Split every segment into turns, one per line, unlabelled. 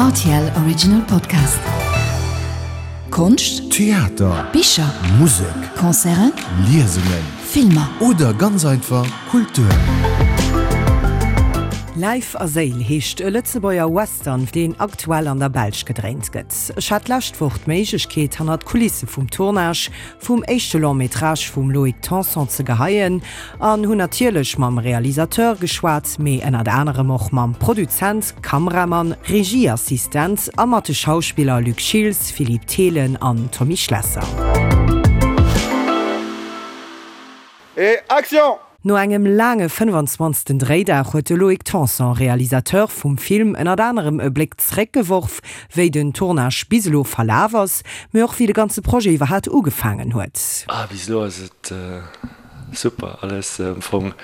Rtl Original Podcast. Konscht,
Theater,
Bicher,
Musek,
Concerten,
Liesungen
Filmer.
Oder ganz einfach Kultur.
Läif a Séil heescht e Lëtzebuerger Western, deen aktuell an der Belsch gedréint gëtt. Ech hat d'lescht Woch d'Méiglechkeet, hannert d'Kulisse vum Tournage vum éischte Long Métrage vum Loïc Tanson ze geheien an hunn natierlech mam Realisateur geschwat, mee ënnert anerem och mam Produzent, Kameramann, Regieassistent a mat de Schauspiller Luc Schiltz, Philippe Thelen an Tommy Schlesser.
Et action!
No engem laange 25. Dréidag huet de Loïc Tanson, Realisateur vum Film, ënnert anerem e Bléck zréckgeworf, wéi den Tournage bis elo verlaf ass, mee och wéi de ganze Projet iwwerhaat ugefaangen huet.
Ah, bis elo ass et super, alles am Fong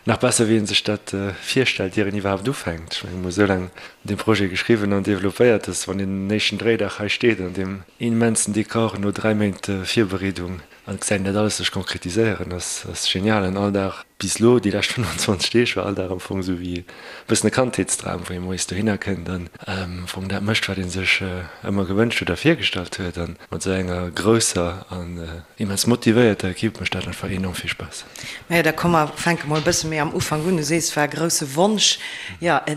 nach besser wéi een sech dat virstellt ier een iwwerhaapt ufänkt. Ech mengen, mir hu sou laang un deem Projet geschriwwen an developpéiert, dass wann een den éischten Dréidag hei steet an deem immensen Dekor no 3 Méint Virbereedung, An gesäit een dat alles sech konkretiséieren, ass ass genial. An all Dag bis elo, déi lescht 25 Deeg, war all Dag am Fong esou wéi e bëssen e Kandheetsdram, wou ee moies dohinner kënnt an am Fong dat mécht, wat ee sech ëmmer gewënscht huet a virgestallt huet. An mat esou enger grousser an immens motivéierter Ekipp mécht dat einfach enorm vill Spaass.
Majo, da komm mer fänke mol e bësse méi am Ufank un. Du sees, et war e grousse Wonsch, jo, e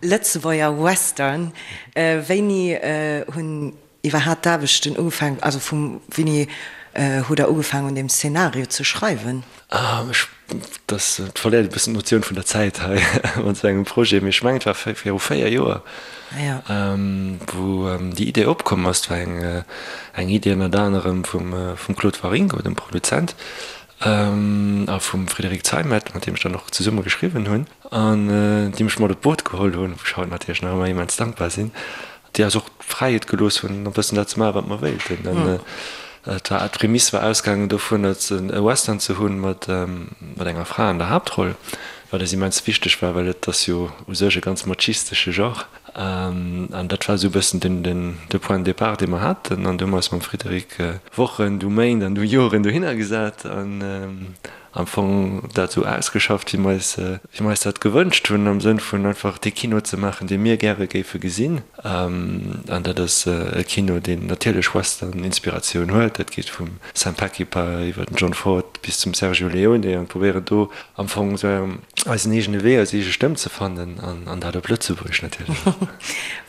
Lëtzebuerger Western. Wéini hunn Iwwerhaat d'Aarbechten ugefaangen, also vum wéini hutt der ugefaangen un deem Szenario ze schreiwen?
Ah, ech, dass, et verléiert e bëssen d'Notioun vun der Zäit hei mat esou engem Projet, mee ech mengen et war viru 4 Joer, wou déi Idee opkomm ass. Et war eng, eng Idee ënnert anerem vum, vum Claude Waringo, dem Produzent, a vum Frédéric Zeimet, mat deem ech dann och zesumme geschriwwen hunn, an déi mech mat op d'Boot geholl hunn, wou ech haut natierlech nach ëmmer immens dankbar sinn. déi eis och d'Fräiheet gelooss hunn, e bëssen dat ze maachen, wat mer wéilten. An et war, d'Prämiss war ausgaangen dovun, e Western ze hunn mat enger Fra an der Haaptroll, wat eis immens wichteg war, well et ass jo u sech e ganz machistesche Genre. An dat war esou e bëssen den, de Point de départ, dee mer haten. An du hu mer eis mam Frédéric Wochen, du Méint an du Joren dohinner gesat an am Fong dat esou ausgeschafft, wéi mer eis, wéi mer eis dat gewënscht hunn, am Sënn vun einfach dee Kino ze maachen, dee mir gäre géife gesinn. An dat ass e Kino, deen natierlech Western-Inspiratioun huet. Dat geet vum Sam Peckinpah iwwer den John Ford bis zum Sergio Leone an probéieren do am Fong esou eisen eegene Wee, eis eege Stëmm ze fannen an dat op Lëtzebuergesch natierlech.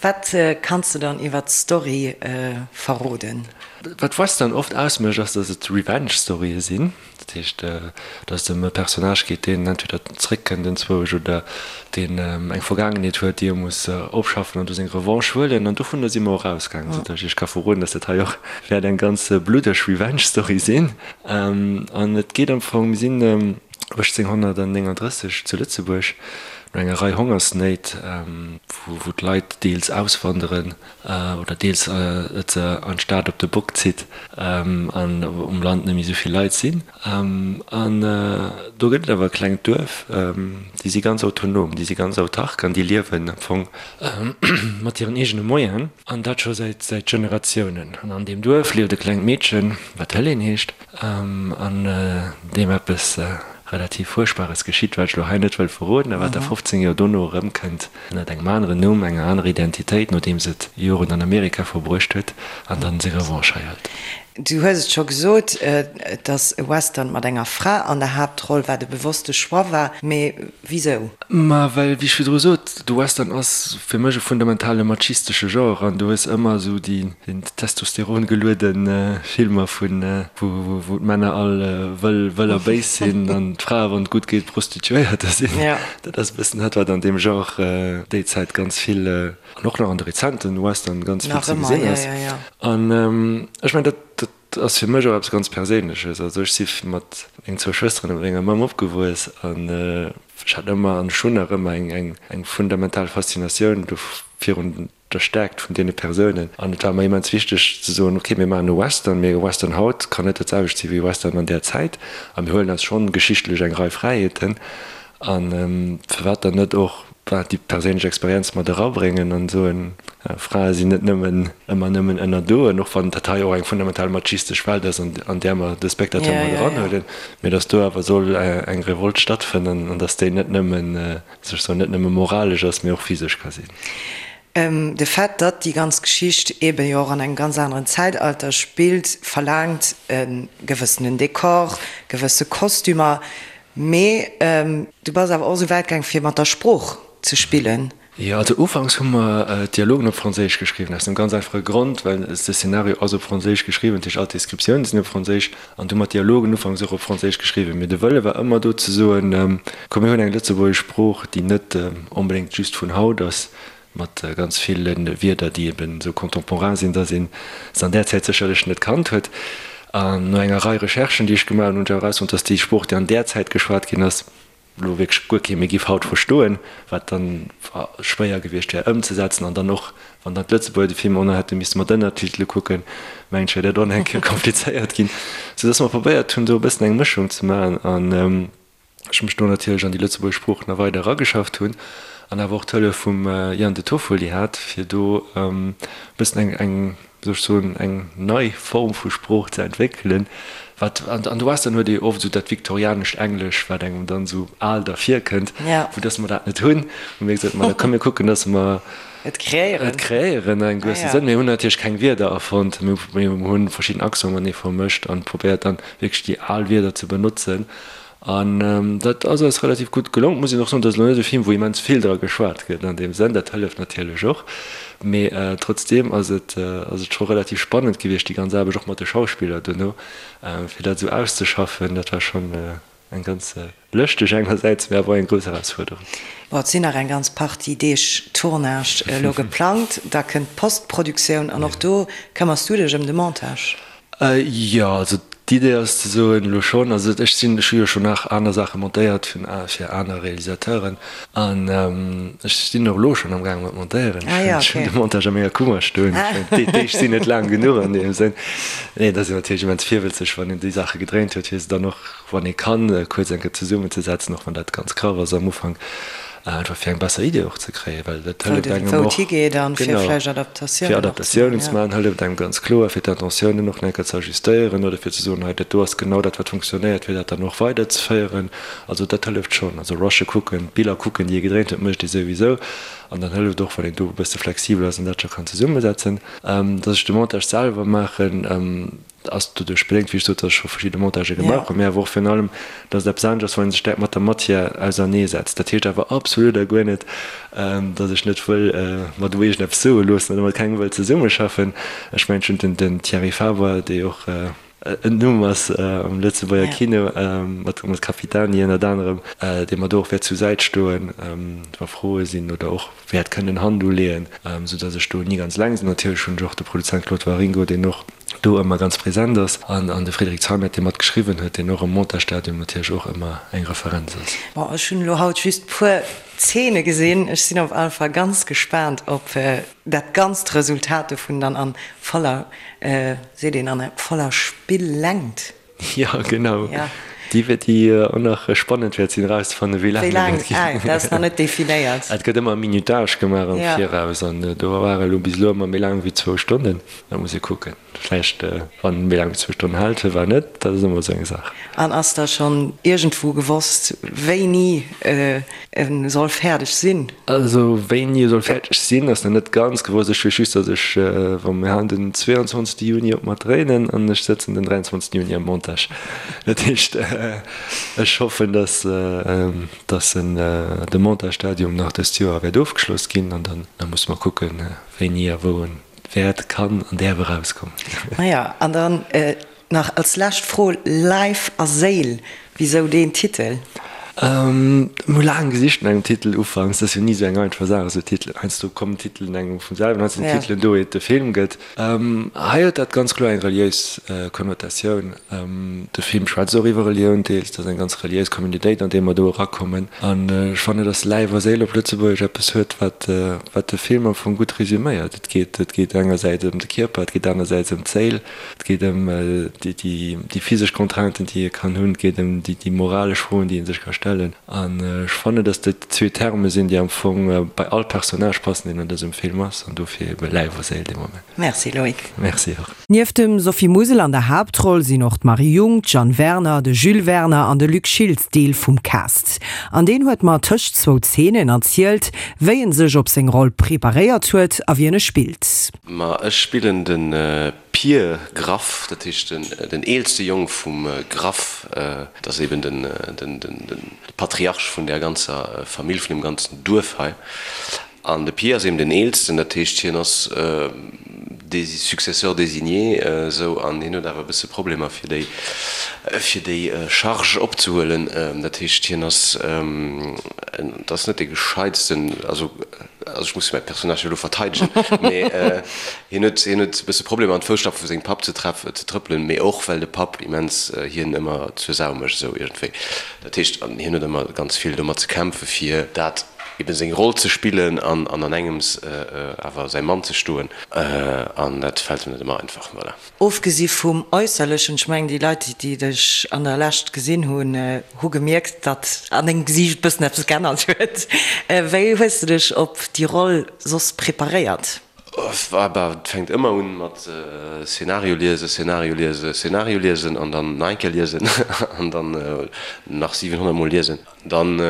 Wat kanns de dann iwwer d'Story verroden?
Wat Western oft ausmécht, ass, datt et Revenge-Storye sinn. Dat heescht, datt et ëm e Personnage geet, deen entweder zréckkënnt enzwousch oder deen eng Vergaangenheet huet, déi e muss opschaffen an do seng Revanche huelen. An dovunner si mer och ausgaangen, soudatt ech Iech ka verroden, datt dat hei och wäert eng ganz bluddeg Revenge-Story sinn. An et geet am Fong, mir sinn 1839 zu Lëtzebuerg, no enger Rei Hongersnéit, wou d'Leit deels auswanderen, oder deels et se an d'Stad op de Bock zitt an um Land net méi esou vill Leit sinn. An do gëtt et awer e klengt Duerf, déi si ganz autonom, déi si ganz autark an déi liewen am Fong mat hiren eegene Moyenen an dat scho säit säit Generatiounen. An an deem Duerf lieft e klengt Meedchen, wat Helene heescht an deem eppes relativ Fuerchtbares geschitt, wat ech elo hei net wëll verroden a wat da 15 Joer dono erëmkënnt. Ënnert engem aneren Numm, enger anerer Identitéit, nodeems et Joren an Amerika verbruecht huet an dann seng Revanche hei hëlt.
Du hues et scho gesot, et ass e Western mat enger Fra an der Haaptroll, wat e bewosste Choix war. Mee wisou?
Ma well, wéi ech virdru sot, de Western ass fir mech e fundamentale machistesche Genre an du hues ëmmer esou déi testosterongeluede Filmer vun wou d'Männer all wëll, wëll a béis sinn an d'Frae, wann et gutt geet, Prostituéierter sinn. Dat ass e bëssen dat, wat an deem Genre déi Zäit ganz vill, an och nach an de rezenten Western ganz vill ze gesinn ass. An ech mengen, dat, dat ass fir mech och eppes ganz Perséinleches. Also ech si mat mengen zwou Schwësteren a mat menger Mamm opgewuess an ech hat ëmmer an ech hunn nach ëmmer eng, eng fundamental Faszinatioun do virun der Stäerkt vun deene Persounen. An et war mer immens wichteg ze soen, ok, mir maachen e Western, mee e Western haut kann net dat selwecht si wéi e Western an där Zäit. A mir huelen eis schonn geschichtlech eng Rei Fräiheeten. A firwat dann net och déi perséinlech Experienz mat erabréngen an soen, Frae sinn net nëmmen ëmmer nëmmen ënnerdoen, och wann dat hei och eng fundamental machistesch Welt ass, an där mer de Spectateur mat eranhuelen, mee datt do awer soll eng Revolt stattfënnen an datt déi net nëmmen, sech soen, net nëmme moralesch ass, mee och physesch ka sinn.
De Fait, datt déi ganz Geschicht eebe jo och an engem ganz aneren Zäitalter spillt, verlaangt e gewëssenen Dekor, gewësse Kostümer. Mee du bass awer och esou wäit gaang, fir mat der Sprooch ze spillen.
Jo, also ufanks hu mer d'Dialogen op Franséisch geschriwwen, aus dem ganz einfache Grond, well de Szenario ass op Franséisch geschriwwen, dat heescht all d'Descriptiounen sinn op Franséisch, an du hu mer d'Dialogen ufanks och op Franséisch geschriwwen. Mee de Wëlle war ëmmer do ze soen, komm mir hunn eng lëtzebuergesch Sprooch, déi net onbedéngt just vun haut ass, mat ganz ville Wierder, déi eben esou contemporain sinn, datt ee se an där Zäit sécherlech net kannt huet. An no enger Rei Recherchen, déi ech gemaach hunn, hunn ech awer erausfonnt, datt déi Sprooch, déi an där Zäit geschwat ginn ass, elo wierklech guer kee méi giff haut verstoen, wat dann schwéier gewiescht wär ëmzesetzen an dann och, wann dann d'Lëtzebuerger de Film och nach hätte misste mat Ënnertitele kucken, mengen ech, wär dat och nach eng Kéier komplizéiert ginn. Soudass mer probéiert hunn, do e bëssen eng Mëschung ze maachen an ech mech do natierlech an déi lëtzebuergesch Sprooch nach weider erageschafft hunn an awer och d'Hëllef vum Ian De Toffoli hat, fir do e bëssen eng, eng, wéi soll ech soen, eng nei Form vu Sprooch ze entwéckelen, wat, an de Western huet ee oft esou dat viktorianescht Englesch, wat engem dann esou al dervirkënnt, vu dass mer dat net hunn, hu mir gesot, ma da komm mir kucken, dass mer
et kreéieren,
et kreéieren an engem gewësse Sënn. Mir hunn natierlech keng Wierder erfonnt, mir hunn verschidden Accenten matenee vermëscht an probéiert dann wierklech déi al Wierder ze benotzen. An dat ass eis relativ gutt gelong. Et muss een och soen, dat ass elo net e Film, wou immens vill dra geschwat gëtt an deem Sënn. Dat hëlleft natierlech och. Mee trotzdeem ass et ass et scho relativ spannend gewiescht, déi ganz Aarbecht, och mat de Schauspiller duerno, fir dat esou auszeschaffen. Dat war schonn eng ganz lëschteg engersäits, mee awer och eng grouss Erausfuerderung.
Bon, et sinn nach eng ganz Partie Deeg Tournage elo geplangt. Da kënnt d'Postproduktioun an och do këmmers du dech ëm de Montage.
Jo, also d'Idee ass ze soen, elo schonn, also ech sinn, ech hu jo schonn nach aner Saache montéiert fir fir aner Realisateuren an ech sinn och elo schonn am gaange mat montéieren. Ech hunn de Montage a menger Kummer stoen. Déi Deeg sinn net laang genuch an deem Sënn. Nee, et ass een natierlech immens virwëtzeg, wann een déi Saache gedréint huet, fir se dann och, wann ee kann, kuerz eng Kéier zesummenzesetzen, och wann dat ganz graff ass am Ufank. Einfach fir eng besser Idee och ze kréien, well dat hëlleft engem och.
Wou et higeet an fir vläicht Adaptatiounen
fir Adaptatiounen ze maachen, hëlleft engem ganz kloer, fir d'Intentiounen och nach eng Kéier ze ajustéieren oder fir ze soen, hei dat do ass genau dat wat funktionéiert, fir dat dann och weiderzeféieren. Also dat hëlleft schonn. Also rushe kucken, d'Biller kucken, déi ee gedréint huet, mécht ee souwisou. An dann hëlleft och, wann een do e bësse flexibel ass an dat scho kann zesummesetzen. Dass ech de Montage selwer maachen, Ass doduerch bedéngt, wéi ech sot, datt ech scho verschidde Montagë gemaach hunn, mä awer och virun allem, datt et eppes anescht ass, wann ee sech direkt mat der Matière auserneesetzt. Dat heescht awer absolut a guer net, datt ech net wëll mer do iergendeppes soe loossen oder mat kengem wëll zesummeschaffen. Ech mengen, ech hunn den Thierry Faber, dee och en Numm ass am Lëtzebuerger Kino, mat Capitani ënnert anerem, dee mer do och wäert zur Säit stoen, wa Froe sinn oder och wäert kënnen Hand uleeën, sou dass ech do ni ganz eleng sinn. Natierlech hunn ech och de Produzent Claude Waringo, deen och do ëmmer ganz present ass, an an de Frédéric Zeimet, dee mat geschriwwen huet, deen och am Montagestadium natierlech och ëmmer eng Referenz ass.
Bon, ech hunn elo haut just puer Zeene gesinn. Ech sinn op alle Fall ganz gespaant op dat ganzt Resultat dovun dann an voller, seet een, an voller Spillängt.
Jo, genau. Ja. Déi wäert, déi och nach spannend wäert sinn erauszefannen, wéi laang
dat wäert ginn. Wéi laang? Dat ass nach net definéiert.
Et gëtt ëmmer e Minutage gemaach am Viraus an do war elo bis elo ëmmer méi laang wéi zwou Stonnen. Da muss ee kucken. Vläicht, wann en méi laang wéi zwou Stonnen hält, firwat net? Dat ass ëmmer esou eng Saach.
An ass da schonn iergendwou gewosst, wéini E soll fäerdeg sinn.
Also wéini e soll fäerdeg sinn, ass nach net ganz gewosst. Ech weess just, datt ech, wa mir halen den 22 Juni op mat dréinen an ech sëtzen den 23 Juni am Montage. Dat heescht, ech hoffen, datt datt en de Montage-Stadium nach dëst Joer wäert ofgeschloss ginn an dann da musse mer kucken, wéini a wou en wäert, kann an däerf erauskommen.
Maja, an dann Nach als lescht Fro, Leif a Séil, wisou deen Titel?
Mir hu laang gesicht no engem Titel ufanks. Dat ass jo ni esou eng einfach Saach, esou Titelen. Heiansdo kommen Titelen engem vum selwen, heiansdo sinn Titelen do, iert de Film gëtt. Hei huet dat ganz kloer eng reliéis Konnotatioun. De Film schwätzt och iwwer Relioun deels. Dat ass eng ganz reliéis Communautéit, an déi mer do erakommen. An ech fannen, datt Läif a Séil op Lëtzebuergesch eppes huet, wat wat de Film am Fong gutt resuméiert. Et geet et geet engersäits ëm de Kierper, et geet anersäits ëm d'Séil. Et geet ëm déi physesch Contrainten, déi ee kann hunn. Et geet ëm déi moralesch Froen, déi ee sech ka stellen. stellen. An ech fannen, dass dat déi zwee Terme sinn, déi am Fong bei all Personnage passen, deen an dësem Film ass, an dofir ebe Läif a Séil dee Moment.
Merci Loïc.
Merci och.
Nieft dem Sophie Musel an der Haaptroll sinn och d'Marie Jung, d'Jeanne Werner, de Jules Werner an de Luc Schiltz Deel vum Cast. An deen huet mer tëscht zwou Zeenen erzielt, wéi en sech op seng Roll preparéiert huet a wien e spillt.
Ma ech spillen de Pir Graff, dat heescht den eelste Jong vum Graff. Dat ass eben de Patriarch vun där ganzer Famill, vun deem ganzen Duerf hei. An de Pir ass eben den eelsten, dat heescht hien ass de Successeur désigné esou, an hien huet awer e bësse Problemer fir déi fir déi Charge opzehuelen. Dat heescht hien ass, et ass net dee gescheitsten, also also ech muss mäi Personnage jo elo verteidegen, mee hien huet hien huet e bësse Problemer an d'Fousstapfe vu sengem Papp ze treff ze trëppelen, mee och well de Papp immens hien ëmmer zur Sau mécht esou iergendwéi. Dat heescht an hien huet ëmmer ganz vill domat ze kämpfe fir dat eben seng Roll ze spillen an an engems awer säi Mann ze stoen, an dat fält em net ëmmer einfach. Voilà.
Ofgesi vum Äusserlechen, ech mengen déi Leit déi dech an der Lescht gesinn hunn, hu gemierkt, datt an dengem Gesiicht e bëssen eppes geännert huet. Wéi hues de dech op déi Roll soss preparéiert?
Bah, et fänkt ëmmer un mat Szenario liesen, Szenario liesen, Szenario liesen an dann nach eng Kéier liesen an dann nach 700 mol liesen. Dann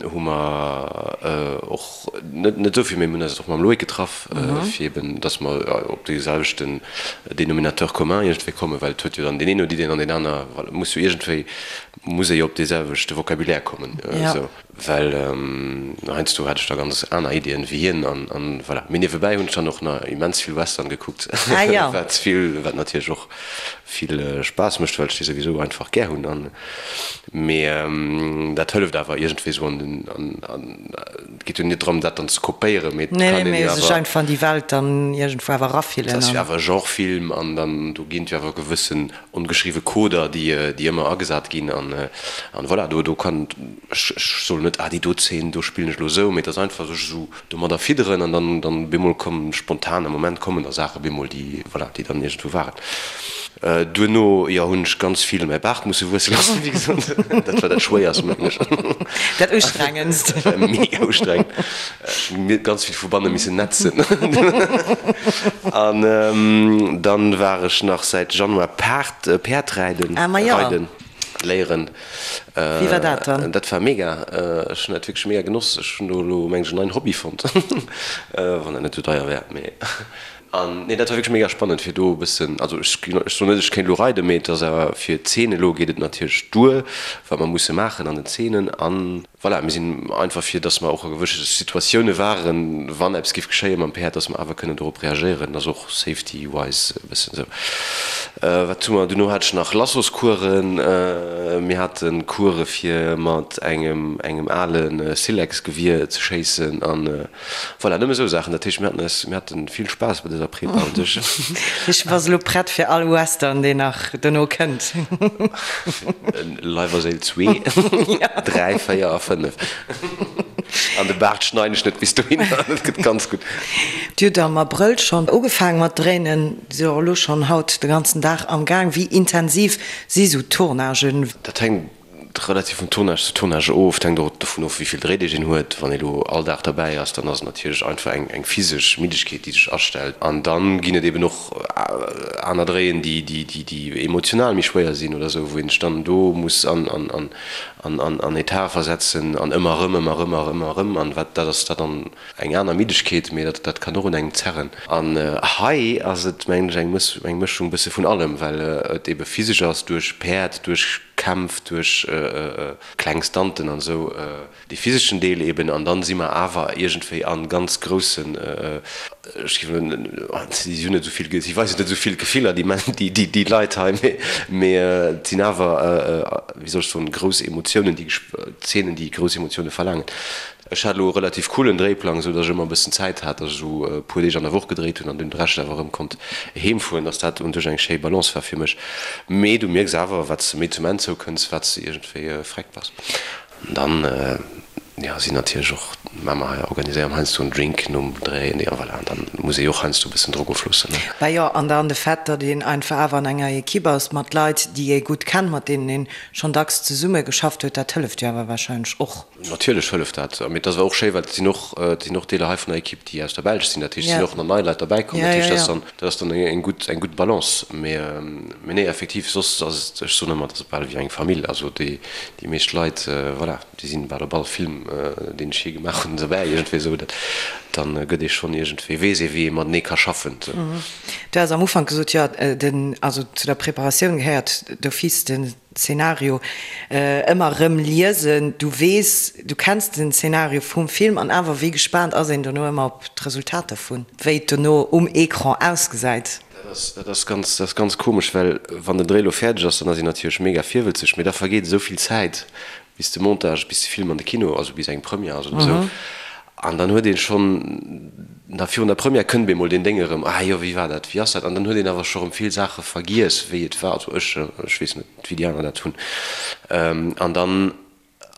hu mer och net net esou vill, mee mir hunn eis och mam Loïc getraff, fir eben, dass mer op dee selwechten Dénominateur commun iergendwéi kommen, well et huet jo dann deen een huet Iddien an deen aner, voilà, muss jo iergendwéi, muss ee jo op dee selwechte Vocabulaire kommen esou. Well heiansdo hat ech da ganz aner Iddien wéi hien an an voilà. Mee niewebäi hunn ech dann och nach immens vill Western gekuckt, wat vill, wat natierlech och vill Spaass mécht, well ech déi souwisou einfach gär hunn an mee dat hëlleft awer iergendwéi sou an den an an et geet jo net drëm dat dann ze kopéieren, mee et
kann een jo awer sech einfach an déi Welt dann iergendwou awer erafillen.
Et ass jo awer e Genrefilm an dann do ginn et jo awer gewëssen ongeschriwwe Coder, déi déi ëmmer agesat ginn an an voilà, do do kann ech ech soen net, ah déi do Zeen, do spillen ech elo esou, mee et ass einfach sech esou domadder fidderen an dann dann bemol kommen spontan am Moment kommen da Saache bemol déi voilà, déi dann iergendwou waren. Duerno, jo, hunn ech ganz vill mäi Baart musse wuesse loossen, wéi gesot, dat war dat schwéierst mengen ech.
Dat ustrengendst.
Dat war mega ustrengend. Ech hunn ganz vill vu banne missen netzen. An dann war ech nach säit Januar Paart, Päerd räiden, reiden léieren.
Wéi war dat dann?
Dat war mega. Ech hunn dat wierklech mega genoss. Ech hunn do elo mengen ech en neien Hobby fonnt, wann dat net esou deier wär. Mee an nee, dat war wierklech mega spannend fir do e bëssen, also ech ech soen net ech kéint elo reiden, mee et ass awer fir d'Zeen elo geet et natierlech duer, wat mer musse maachen an den Zeenen an. Voilà, mir sinn einfach fir, dass mer och a gewësse Situatioune waren, wann eppes géif geschéie mam Päerd, dass mer awer kënnen dorop reagéieren. Dat ass och safety-wise e bëssen esou. Wat hu mer? Duerno hat ech nach Lassoscoursen. Mir hate Course fir mat engem engem ale Silex-Gewier ze schéissen an Voilà, nëmme esou Saachen. Dat heescht, mir haten eis, mir hate vill Spaass bei dëser Prepa un sech.
Ech bass elo prett fir all Western, deen nach dono kënnt.
Leif a Séil zwee, dräi, véier a fënnef. An de Baart schneiden ech net bis dohinner, dat gëtt ganz gutt.
Dir hutt am Abrëll schonn ugefaangen mat dréinen, sidd och elo schonn haut de ganzen Dag am Gaang. Wéi intensiv si sou Tournagen?
Dat hänkt Relativ vun Tournage zu Tournage of. Et hänkt och dovun of, wéi vill Dréideeg een huet. Wann ee lo all Dag derbäi ass, dann ass et natierlech einfach eng eng physesch Middegkeet, déi sech astellt. An dann ginn et eben och aner Dréien, déi déi déi déi emotional méi schwéier sinn oder esou, wou een sech dann do muss an an an an an an Etat versetzen an ëmmer erëm, ëmmer erëm, ëmmer erëm. An wat dat ass dat dann eng aner Middegkeet, mee dat dat kann och un engem zerren. An hei ass et, mengen ech, eng Mëss eng Mëschung bësse vun allem, well et ebe physesch ass duerch Päerd, duerch Kämpf, duerch kleng Stunten an esou, dee physeschen Deel eben. An dann si mer awer iergendwéi a ganz groussen, ech géif elo, si hunn net esou vill, si weisen net esou vill Gefiller, déi Män, déi déi Leit hei, mee mee et sinn awer, wéi soll ech soen, grouss Emotiounen, déi Zeenen, déi grouss Emotioune verlaangen. Ech hat elo e relativ coolen Dréiplang, esou dass ech ëmmer e bëssen Zäit hat, dass ech esou e puer Deeg an der Woch gedréit hunn an dunn de Rescht awer erëm konnt heem fueren, dass dat un sech eng schéi Balance war fir mech. Mee du mierks awer, wat s de méi zum Enn zoukënns, wat s de iergendwéi vreckt bass. An dann. Jo, sinn natierlech och, mä mer organiséieren heiansdo en Drink nom Dréi, an voilà, an dann muss ee jo och heiansdo e bëssen Drock ofloossen, ne.
Bah jo, an dann de Fait, datt een einfach awer an enger Equipe ass mat Leit, déi ee gutt kennt, mat deenen een schonn dacks zesumme geschafft huet, dat hëlleft jo awer warscheinlech och.
Natierlech hëlleft dat, mee et ass awer och schéi, well et sinn och, et sinn och Deeler hei vun der Equipe, déi aus der Belsch sinn, dat heescht, et sinn och nach nei Leit derbäi komm, dat heescht, dat ass dann, dat ass dann eng gutt, eng gutt Balance. Mee, mee nee, effektiv, soss ass et, ech soen ëmmer, et ass bal wéi eng Famill, also déi, déi meescht Leit, voilà. Déi sinn bal op all Film, deen ech jee gemaach hunn, dobäi iergendwéi esou. Dat, dann gëtt ee schonn iergendwéi, weess ee wéi ee matenee ka schaffen.
Du has am Ufank gesot, jo, den, also zu der Preparatioun gehéiert d'office den Zeenario ëmmer erëm liesen. Du weess, du kenns den Zeenario vum Film an awer wéi gespaant ass een dono ëmmer op d'Resultat dervun, wéi et dono um Ecran ausgesäit?
Dat ass, dat ass ganz, dat ass ganz komesch, well wann den Dréi elo fäerdeg ass, dann ass een natierlech mega virwëlzeg, mee da vergeet esou vill Zäit, bis de Montage, bis de Film an de Kino, also bis eng Première ass oder esou. An dann huet een schonn, nach virun der Première kënnt bemol deen Déng erëm, ah jo, wéi war dat, wéi ass dat? An dann huet een awer scho rëm vill Saache vergiess, wéi et war, also ech, ech weess net, wéi déi aner dat hunn. An dann,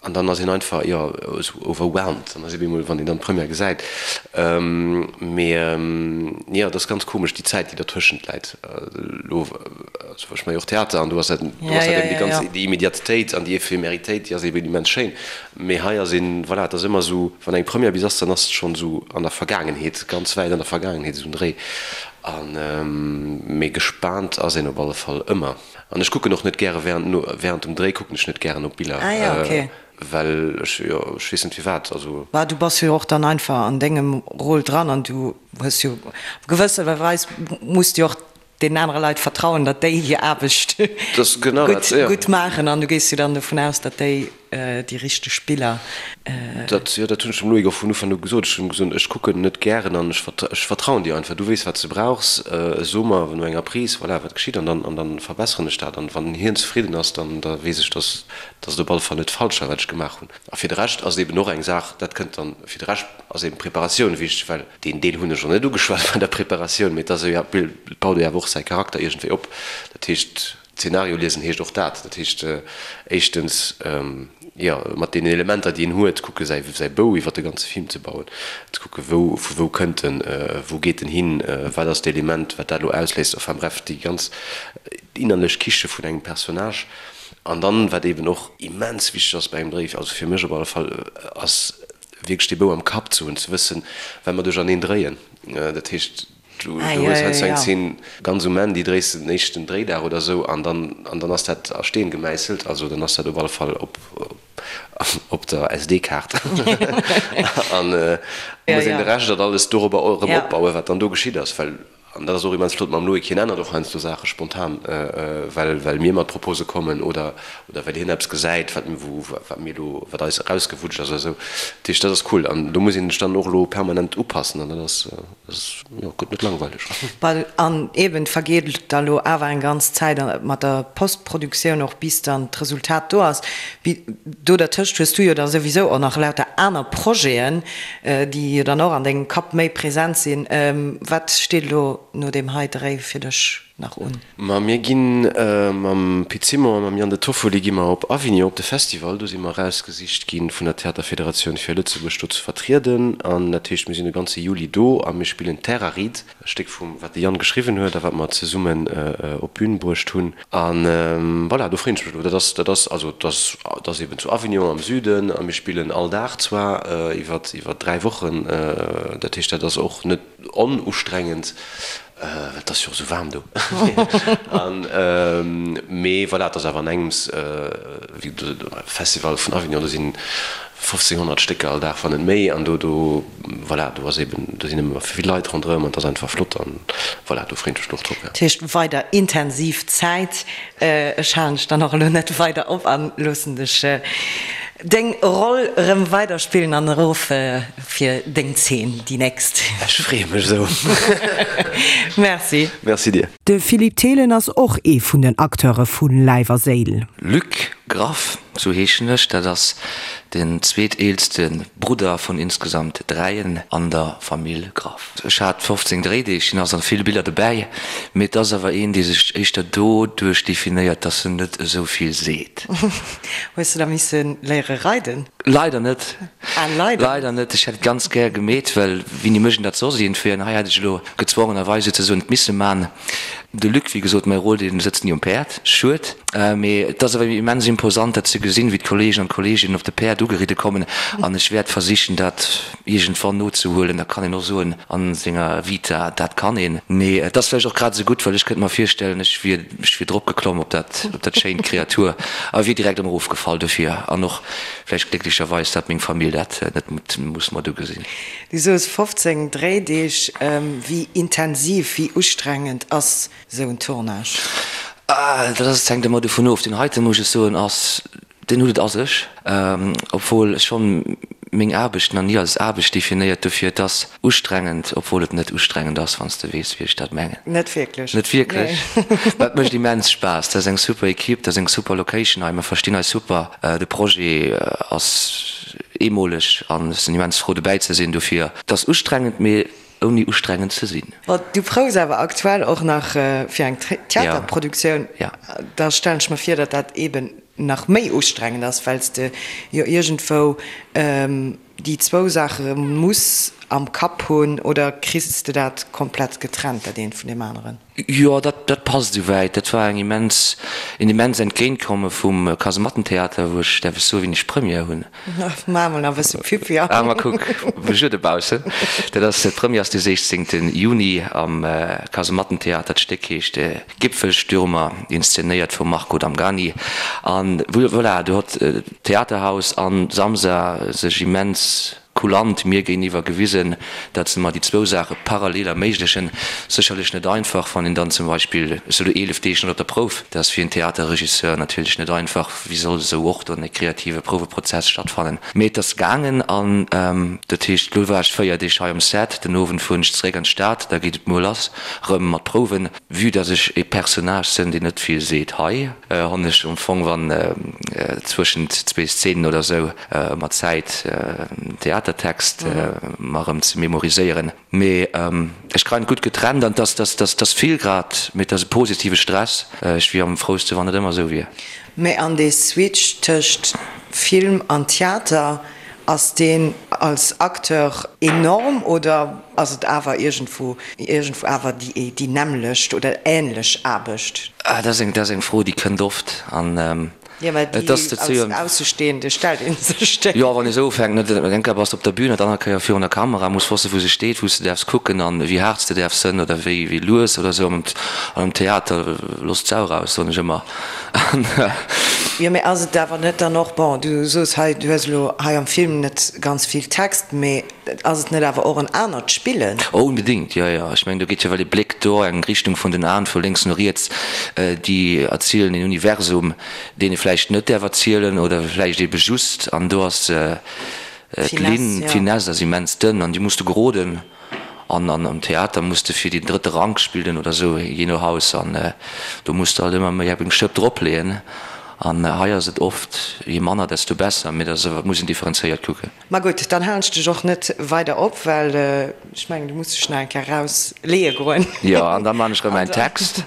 an dann ass een einfach, jo, esou overwhelmed, dann ass ee bemol, wann een dann d'Première gesäit. Mee jo, et ass ganz komesch, déi Zäit, déi dertëschent läit elo. Also ech maache jo och Theater an do ass dat, do ass dat eben déi ganz, déi Immediatetéit an déi Ephemeritéit, déi ass eben immens schéin. Mee hei ass een, voilà, et ass ëmmer esou, wann eng Première bis ass, dann ass et schonn esou an der Vergaangenheet, ganz wäit an der Vergaangenheet, esou en Dréi. An, mee gespaant ass een op alle Fall ëmmer. An ech kucken och net gäre während, no, während dem Dréi kucken ech net gären op Biller, well ech, jo, ech weess net firwat, also.
Bah, du bass jo och dann einfach an dengem Rôle dran an du hues jo, op gewësse Weis muss du jo och deenen anere Leit vertrauen, datt déi hir Aarbecht gutt maachen an du gees jo dann dovun aus, datt déi déi richteg Biller.
Dat, jo, dat hunn ech dem Loïc och vun Ufank u gesot. Ech hunn him gesot, ech kucken net gären an ech ech vertrauen dir einfach. Du weess, wat s de brauchs. So mer no enger Prise, voilà, wat geschitt an dann an dann verbesseren ech dat. An wann hien zefridden ass, dann da weess ech, datt datt et op alle Fall net falsch war, wat ech gemaach hunn. A fir de Rescht ass et eben och eng Saach, dat kënnt dann, fir de Rescht ass eben d'Preparatioun wichteg, well deen Deel hunn ech och net ugeschwat bei der Preparatioun, mee et ass jo, et baut ee awer och säi Charakter iergendwéi op. Dat heescht, Zeenario liesen heescht och dat. Dat heescht éischtens, jo, mat deenen Elementer, déi een huet, kucke säi säi Bou iwwer de ganze Film ze bauen, ze kucke wou, vu wou kënnt en, wou geet en hin, wat ass d'Element, wat dat elo ausléist, enfin bref, déi ganz innerlech Kiche vun engem Personnage. An dann, wat eeben och immens wichteg ass bei engem Dréi, also fir mech op alle Fall, ass wierklech dee Bou am Kapp ze hunn, ze wëssen, well mer duercherneen dréien. Dat heescht, du hues heiansdo eng Zeen ganz um Enn, déi dréis de den éischten Dréidag oder esou, an dann, an dann ass dat a Steen gemäisselt, also dann ass dat op alle Fall op, op der SD-Kaart. An da muss een de Rescht dat alles dorobber erëm opbauen, wat dann do geschitt ass, well An dat ass och immens flott mam Loïc, hien ännert och heiansdo Saache spontan, well well mir mat Propose kommen oder oder well hien eppes gesäit, wat wou wat mir elo wat eis erausgewutscht ass oder esou. Dat heescht, dat ass cool an do muss een sech dann och elo permanent upassen an dat ass dat ass jo gëtt net langweileg.
Well an eben, et vergeet da lo awer eng ganz Zäit mat der Postproduktioun och bis dann d'Resultat do ass. Do dertëscht hues du jo da souwisou och nach lauter aner Projeten, déi jo dann och an dengem Kapp méi present sinn. Wat steet elo no deem hei Dréi fir dech nach un?
Ma mir gi mam Pit Simon a mam Yann De Toffoli gi mer op Avignon op de Festival. Do si mer erausgesicht gi vun der Theaterfederatioun fir Lëtzebuerg do ze vertrieden. An dat heescht, mir sinn de ganze Juli do a mir spillen Terraride, e Stéck vum wat de Yann geschriwwen huet a wat mer zesummen op d'Bün bruecht hunn. A voilà, do freeën ech mech elo. Dat ass, dat ass, also dat ass, dat ass eben zu Avignon am Süden a mir spillen all Dag zwar iwwer, iwwer 3 Wochen. Dat heescht, dat ass och net onustrengend, well et ass jo och esou waarm do. An, mee voilà, et ass awer an engems, wéi de Festival vun Avignon, do sinn 1.500 Stécker all Dag, wann net méi. An do, do, voilà, do ass eben, do sinn ëmmer vill Leit ronderëm an et ass einfach flott an voilà, do freeën ech mech och drop,
jo. Dat heescht weider intensiv Zäit. Ech halen dech dann och elo net weider op an loossen dech deng Roll erëm weider spillen an erof fir deng Zeen, déi nächst.
Ech freeë mech esou.
Merci.
Merci dir.
De Philippe Thelen ass och ee vun den Acteure vu Läif a Séil.
Luc.
Graff, sou heeschen ech. Dat ass den zweeteelste Brudder vun insgesamt dräien an der Famill Graff. Ech hat 15 Dréideeg, sinn also vill Biller dobäi, mee et ass awer een, dee sech éischter doduerch definéiert, dass en net esou vill seet.
Hues de da misse léiere reiden?
Leider net.
Ah, leider?
Leider net. Ech hätt et ganz gär gemeet, well wéini mécht een dat soss iergendwéi? An hei hätt ech elo gezwongenerweis souzesoen et misse man. De Luc, wéi gesot, mäi Rôle, dee sëtzt ni um Päerd. Schued. Mee et ass awer immens imposant, dat ze gesinn, wéi d'Kollegen an d'Kolleeginnen op de Päerd ugeridde kommen. An ech wäert versichen, dat iergendwann nozehuelen. Da kann een och soen a senger Vita, dat kann een. Mee et ass vläicht och grad esou gutt, well ech kënnt mer virstellen, ech wier, ech wier dropgeklomm op dat, op dat schéint Kreatur a wier direkt erëm erofgefall. Dofir, an och vläicht glécklecherweis, datt meng Famill dat net muss mat ugesinn.
Du soos 15 Dréideeg. Wéi intensiv, wéi ustrengend ass esou en Tournage?
Dat ass, hänkt ëmmer dovun of. Deen heiten, muss ech soen, ass, deen huet et a sech. Obwuel ech schonn meng Aarbecht nach ni als Aarbecht definéiert. Dofir, et ass ustrengend, obwuel et net ustrengend ass, wann s de weess, wéi ech dat mengen.
Net wierklech.
Net wierklech. Mä et mécht immens Spaass. Dat ass eng super Equipe, dat ass eng super Location hei. Mer verstinn eis super. De Projet ass eemoleg an ech sinn immens frou dobäi ze sinn. Dofir, et ass ustrengend, mee ouni ustrengend ze sinn.
Bon, du proufs awer aktuell och nach fir eng Theaterproduktioun. Da stellen ech mer vir, datt dat eeben nach méi ustrengend ass, well s de jo iergendwou déi zwou Saache muss am Kapp hunn. Oder kriss de dat komplett getrennt, dat eent vun deem aneren?
Jo, dat, dat passt esouwäit. Dat war eng immens, een immens Entgéintkomme vum Kasemattentheater, wou ech, däerf ech soen, wéini ech Première hunn?
Maach mol nach e bësse Pub, jo.
Ah, ma kuck, Besuer dobaussen. Dat ass, d'Première ass de 16. Juni am Kasemattentheater. D'Stéck heescht Gipfelstürmer, inszenéiert vum Marco Damgani. An voilà, do hott d'Theaterhaus an d'Samsa sech immens Kulant mir géiniwwer gewisen, dat se mer déi zwou Saache parallel erméiglechen. Sécherlech net einfach, wann een dann zum Beispill, ech soe lo 11 Deeg net op der Prouf, dat ass fir en Theaterregisseur natierlech net einfach, wéi soll esou och dann e kreative Prouweprozess stattfannen? Mee et ass gaangen an dat heescht, lo war ech 4 Deeg hei um Set, den Owend fueren ech zeréck an d'Stad, da geet et muer lass rëm mat Prouwen. Vue dass ech e Personnage sënn, deen net vill seet hei, honn ech am Fong, wann zwëschent zwee Szenen oder sou, ëmmer Zäit, den Theatertext mer erëm ze memoriséieren. Mee ech kreien et gutt getrennt an 't ass vill grad, mee 't ass e positive Stress. Ech wier am frouste wann et ëmmer sou wier.
Mee an dee Switch tëscht Film an Theater, ass deen als Acteur enorm oder ass et awer iergendwou iergendwou awer déi nämmlecht oder änlech Aarbecht?
Dat ass eng, dat ass eng Fro, déi kënnt oft an
Jo, mä déi als Aussestehende stellt ee sech déi.
Jo, wann ee sou ufänkt, net? Eng Kéier bass de op der Bühn an d'aner Kéier virun der Kamera, muss wossen, wou se steet, wou s de däerfs kucken an wéi haart s de däerfs sënn oder wéi wéi lues oder sou. An am Theater, looss d'Sau raus, soen ech ëmmer.
Jo, mä ass et awer net dann och, bon, du soos hei, du hues elo hei am Film net ganz vill Text, mä ass et net awer och en anert Spillen?
Oh, onbedéngt, jo, jo. Ech mengen, do geet jo well e Bléck do, eng Richtung vun den Aen, vu lénks no riets, déi erzielen een Universum, deen ee vläicht net däerf erzielen oder vläicht eebe just. An do ass d'Linn, d'Finesse ass immens dënn an déi muss de geroden. An am Theater muss de fir deen drëtte Rank spillen oder esou, jee no Haus. An do muss de halt ëmmer méi eng Schëpp dropleeën. An hei ass et oft, je manner, desto besser. Mee dat muss een differenzéiert kucken.
Ma gutt, dann halen ech dech och net weider op, well ech mengen, du muss dech nach eng Kéier raus leeë goen.
Jo, an da man ech rëm mäin Text.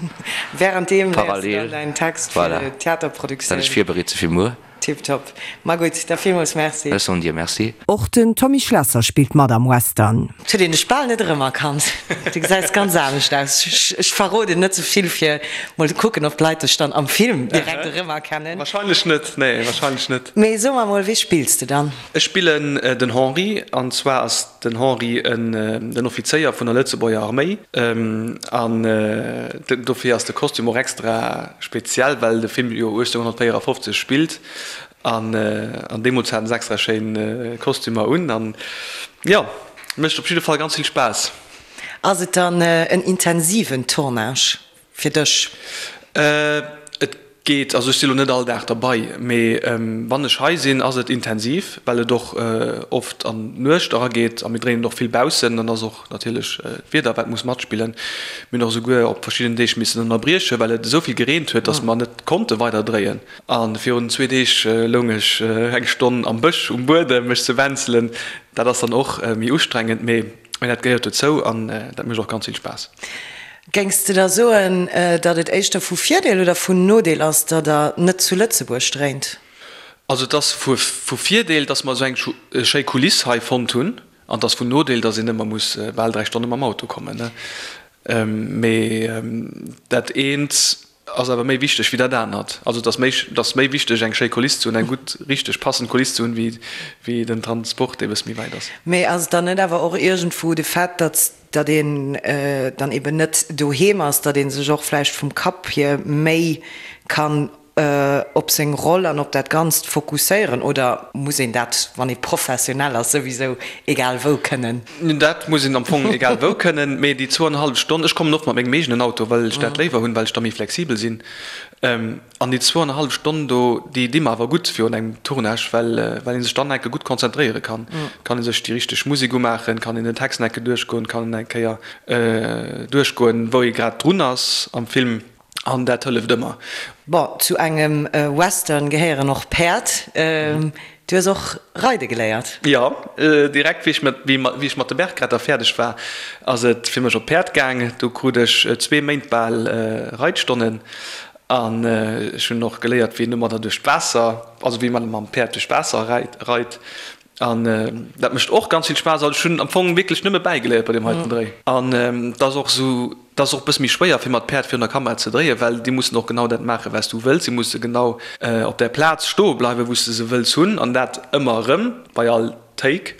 Währenddeem léiers du dann däin Text fir d'Theaterproduktioun.
Voilà, dat ech virbereet se fir muer.
Tiptop. Ma gutt, da villmools Merci.
Ech soen dir Merci.
Och den Tommy Schlesser spillt mat am Western. Et huet een dech bal net erëmerkannt. Du gesäis ganz anescht aus. Ech verroden net sou vill fir mol ze kucken, ob d'Leit dech dann am Film direkt erëmerkennen.
Wahrscheinlech net, nee, wahrscheinlech net.
Mee so mer mol, wee spills de dann?
Ech spillen den Henri, an zwar ass den Henri den Offizéier vun der Lëtzebuerger Arméi, an dofir ass de Kostüm och extra speziell, well de Film jo 1854 spillt, an deemools haten se extra schéin Kostümer un, an jo, mécht op jidde Fall ganz vill Spaass.
Ass et dann en intensiven Tournage fir dech?
Et. geet. Also ech si lo net all Dag derbei, mee wann ech hei sinn, ass et intensiv, well et och oft an d'Nuecht erageet a mir dréinen och vill baussen. Dann ass och natierlech d'Wieder wat muss matspillen. Mir hunn och esouguer op verschidden Deeg missen ënnerbriechen, well et esou vill gereent huet, datt mer net konnte weider dréien. A virun zwee Deeg loung ech eng Stonn am Bësch um Buedem mech ze wänzelen. Dat ass dann och méi ustrengend, mee dat gehéiert dozou an dat mécht och ganz vill Spaass.
Géings de da soen, datt et éischter vu Virdeel oder vun Nodeel ass, datt der net zu Lëtzebuerg dréint?
Also et ass vu Virdeel, datt mer esou eng schéi Kuliss hei fonnt hunn. An et ass vun Nodeel, datt een ëmmer muss bal 3 Stonne mam Auto kommen. Mee dat eent ass awer méi wichteg wéi dat anert. Also et ass méi, et ass méi wichteg eng schéi Kuliss ze hunn, eng gutt, richteg passend Kuliss ze hunn, wéi, wéi den Transport, dee bësse méi wäit ass.
Mee ass et dann net awer och iergendwou de Fait, datt, datt een dann eben net doheem ass, datt ee sech och vläicht vum Kapp hier méi kann op seng Roll an op dat Ganzt fokusséieren? Oder muss een dat, wann ee professionell ass, souwisou egal wou kënnen?
Dat muss een am Fong egal wou kënnen, mee déi zwouanenhallef Stonn, ech kommen oft mat mengem eegenen Auto, well ech dat léiwer hunn, well ech da méi flexibel sinn, an déi zwouanenhallef Stonn do, déi di mer awer gutt virun engem Tournage, well well ee sech dann enke gutt konzentréiere kann. Kann ee sech déi richteg Musek umaachen, kann een den Text enke duerchgoen, kann en eng Kéier duerchgoen, wou ee grad drun ass am Film. An dat hëlleft ëmmer.
Bon, zu engem Western gehéieren och Päerd. Du hues och reide geléiert?
Jo, direkt wéi ech mat, wéi ech mat de Bergretter fäerdeg war, ass et fir mech op d'Päerd gaang. Do krut ech zwee Méint bal Reitstonnen an ech hunn och geléiert, wéi een domadder duerch d'Waasser, also wéi man mam Päerd duerch d'Waasser reit. An dat mécht och ganz vill Spaass. Also ech hunn am Fong wierklech nëmme bäigeléiert bei deem heiten Dréi. An et ass och esou, et ass och e bësse méi schwéier fir mat Päerd virun der Kamera ze dréien, well déi mussen och genau dat maachen, wat s du wëlls. Si musse genau op där Plaz stoe bleiwen, wou s de se wëlls hunn, an dat ëmmer erëm bei all Take.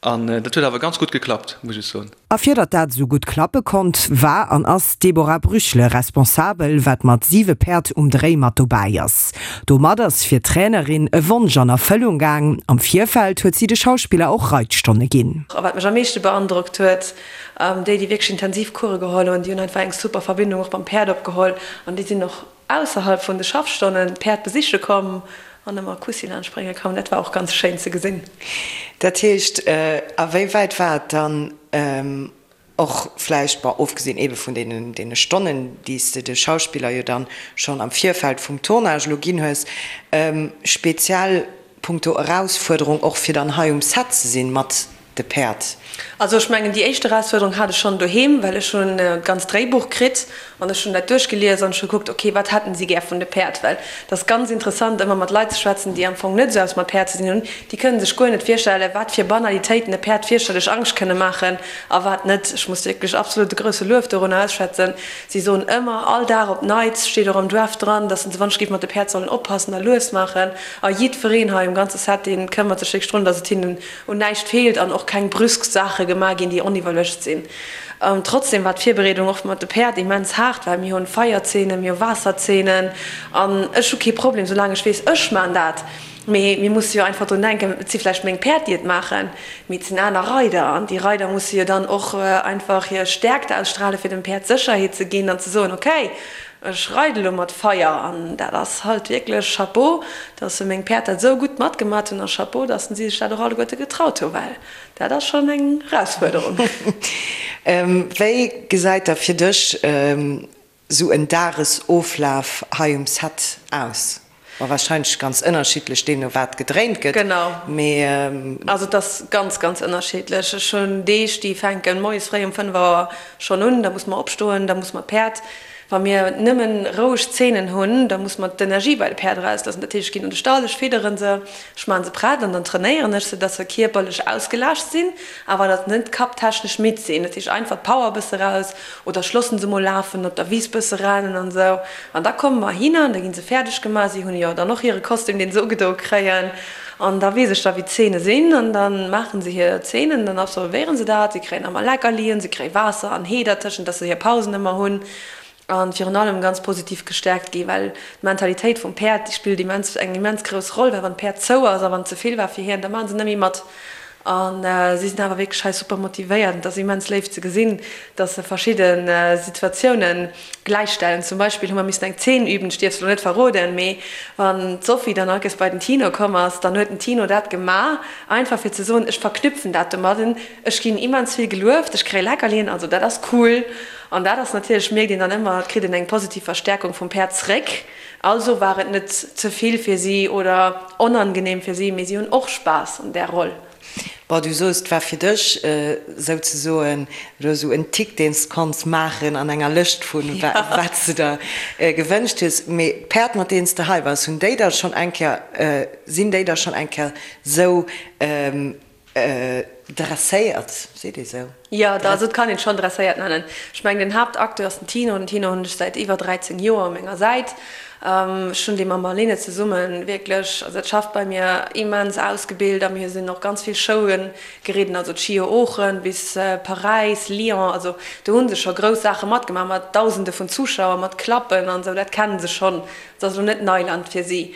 An dat huet awer ganz gutt geklappt, muss ech soen.
A fir datt dat esou gutt klappe konnt, war an ass d'Deborah Brüchele responsabel, wat mat siwe Päerd um Dréi mat dobäi ass. Domat ass fir d'Trainerin e Wonsch an Erfëllung gaang. Am Virfeld huet si de Schauspiller och Reitstonne ginn.
A wat mech am meeschte beandrockt huet, déi, déi wierklech intensiv Course geholl hunn, déi hunn einfach eng super Verbindung och mam Päerd opgeholl an déi sinn och ausserhalb vun de Schaffstonnen d'Päerd besiche komm an ëmmer Kussi laanscht brénge komm. Dat war och ganz schéin ze gesinn.
Dat heescht, a wéi wäit war et dann och vläicht, bon, ofgesinn eebe vun deene Stonnen, déi s de de Schauspiller jo dann schonn am Virfeld vum Tournage elo ginn hues, speziell punkto Erausfuerderung och fir dann hei um Set ze sinn mat de Päerd?
Also ech mengen déi éischt Erausfuerderung hat ech schonn doheem, well ech hunn d'ganzt Dréibuch kritt an ech hunn dat duerchgelies an ech hu gekuckt, ok, wat hätten si gär vun de Päerd? Well et ass ganz interessant ëmmer mat Leit ze schwätzen, déi am Fong net esou eppes mat Päerd ze dinn hunn. Déi kënnen sech guer net virstellen, wat fir Banalitéiten e Päerd fierchterlech Angscht kënne maachen a wat net. Ech muss wierklech absolut e grousse Luef dorunner ausschwätzen. Si soen ëmmer, all Dag op d'Neits, steet och am Draft dran, dass se wann ech géif mat de Päerd sollen oppassen a lues maachen. A jiddwereen hei um ganze Set, dee këmmert sech wierklech drun, dass et hinnen un näischt feelt an och keng brüsk Saache gemaach ginn, déi oniwwerluecht sinn. Trotzdem war d'Virbereedung och mat de Päerd immens haart, well mir hunn Feierzeenen, mir hu Waasserzeenen an ech hu kee Problem, soulaang ech weess, ech maan dat. Mee mir musse jo einfach drun denken, et si vläicht meng Päerd, déi et maachen, mee et sinn aner Reider an déi Reider musse jo dann och einfach hir Stäerkt ausstrahlen, fir dem Päerd Sécherheet ze ginn an ze soen, okay, Ech reide lo mat Feier an dat ass halt wierklech Chapeau, dass se meng Päerd dat esou gutt matgemat hunn a Chapeau, dass si sech dat och alleguerte getraut hu well dat ass schonn eng Erausfuerderung.
Wéi gesäit da fir dech esou en Dagesoflaf hei um Set aus? Ma wahrscheinlech ganz ënnerschiddlech deemno wat gedréint gëtt.
Genau. Mee. Also et ass ganz, ganz ënnerschiddlech. Ech hunn Deeg, déi fänken moies fréi um 5 Auer schonn un, da muss mer opstoen, da muss mer d'Päerd, wa mir nëmmen roueg Zeenen hunn, da muss mer d'Energie bei de Päerd erausloossen. Dat heescht, ech ginn an de Stall, ech fidderen se, ech maachen se prett an dann trainéieren ech se, dass se kierperlech ausgelaascht sinn, awer dass net kapptechnesch midd sinn. Dat heescht einfach d'Power e bësse raus oder ech loossen se mol lafen, op der Wiss bësse rennen an esou. An da komme mer hinner an da gi se fäerdeg gemaach. Si hunn jo dann och hire Kostüm, deen se ugedoe kréien. An da weess ech da, wéi d'Zeene sinn. An da maache se hir Zeenen, dann absolvéiere se dat. Si kréien ëmmer Leckerlien, se kréie Waasser an Hee dertëschent, dass se hir Pausen ëmmer hunn. A virun allem ganz positiv gestäerkt gi, well d'Mentalitéit vum Päerd, déi spillt immens, eng immens grouss Roll, well wann d'Päerd zou ass a wann et ze vill war fir hien, da maache se net méi mat. A si sinn awer wierklech hei super motivéiert. Et ass immens léif ze gesinn, dass se verschidde Situatiounen gläichstellen. Zum Beispill hu mer missen eng Zeen üben, ech dierf se elo net verroden, mee wann d'Sophie dann all Kéiers bei den Tino komm ass, dann huet den Tino dat gemaach, einfach fir ze soen, ech verknüpfen dat domadden, ech ginn immens vill gelueft, ech kréie Leckerlien, also dat ass cool. An dat ass natierlech, mierkt een dann ëmmer, et kritt een eng positiv Verstärkung vum Päerd zréck. Also war et net ze vill fir si oder onangenehm fir si, mee si hunn och Spaass an där Roll.
Bon, du soos, et war fir dech souzesoen elo esou en Tick, deen s de konns maachen an enger Lëscht vun wat s de der gewënscht hues. Mee d'Päerd, mat deenen s de hei waars, hunn déi da schonn eng Kéier, sinn déi da schonn eng Kéier sou Dresséiert, seet ee sou?
Jo, also et kann een et schonn dresséiert nennen. Ech mengen, den Haaptacteur ass den Tino. Den Tino hunn ech säit iwwer 13 Joer u menger Säit. Ech hunn dee mam Marlene zesumme wierklech, also dat schafft bei mir, immens ausgebilt a mir sinn och ganz vill Showe geridden, also d'Schio Oochen bis Paräis, Lyon, also do hu se scho grouss Saache matgemaach mat Dausende vun Zuschauer, mat Klappen an esou, dat kenne se schonn. Et ass elo net Neiland fir si.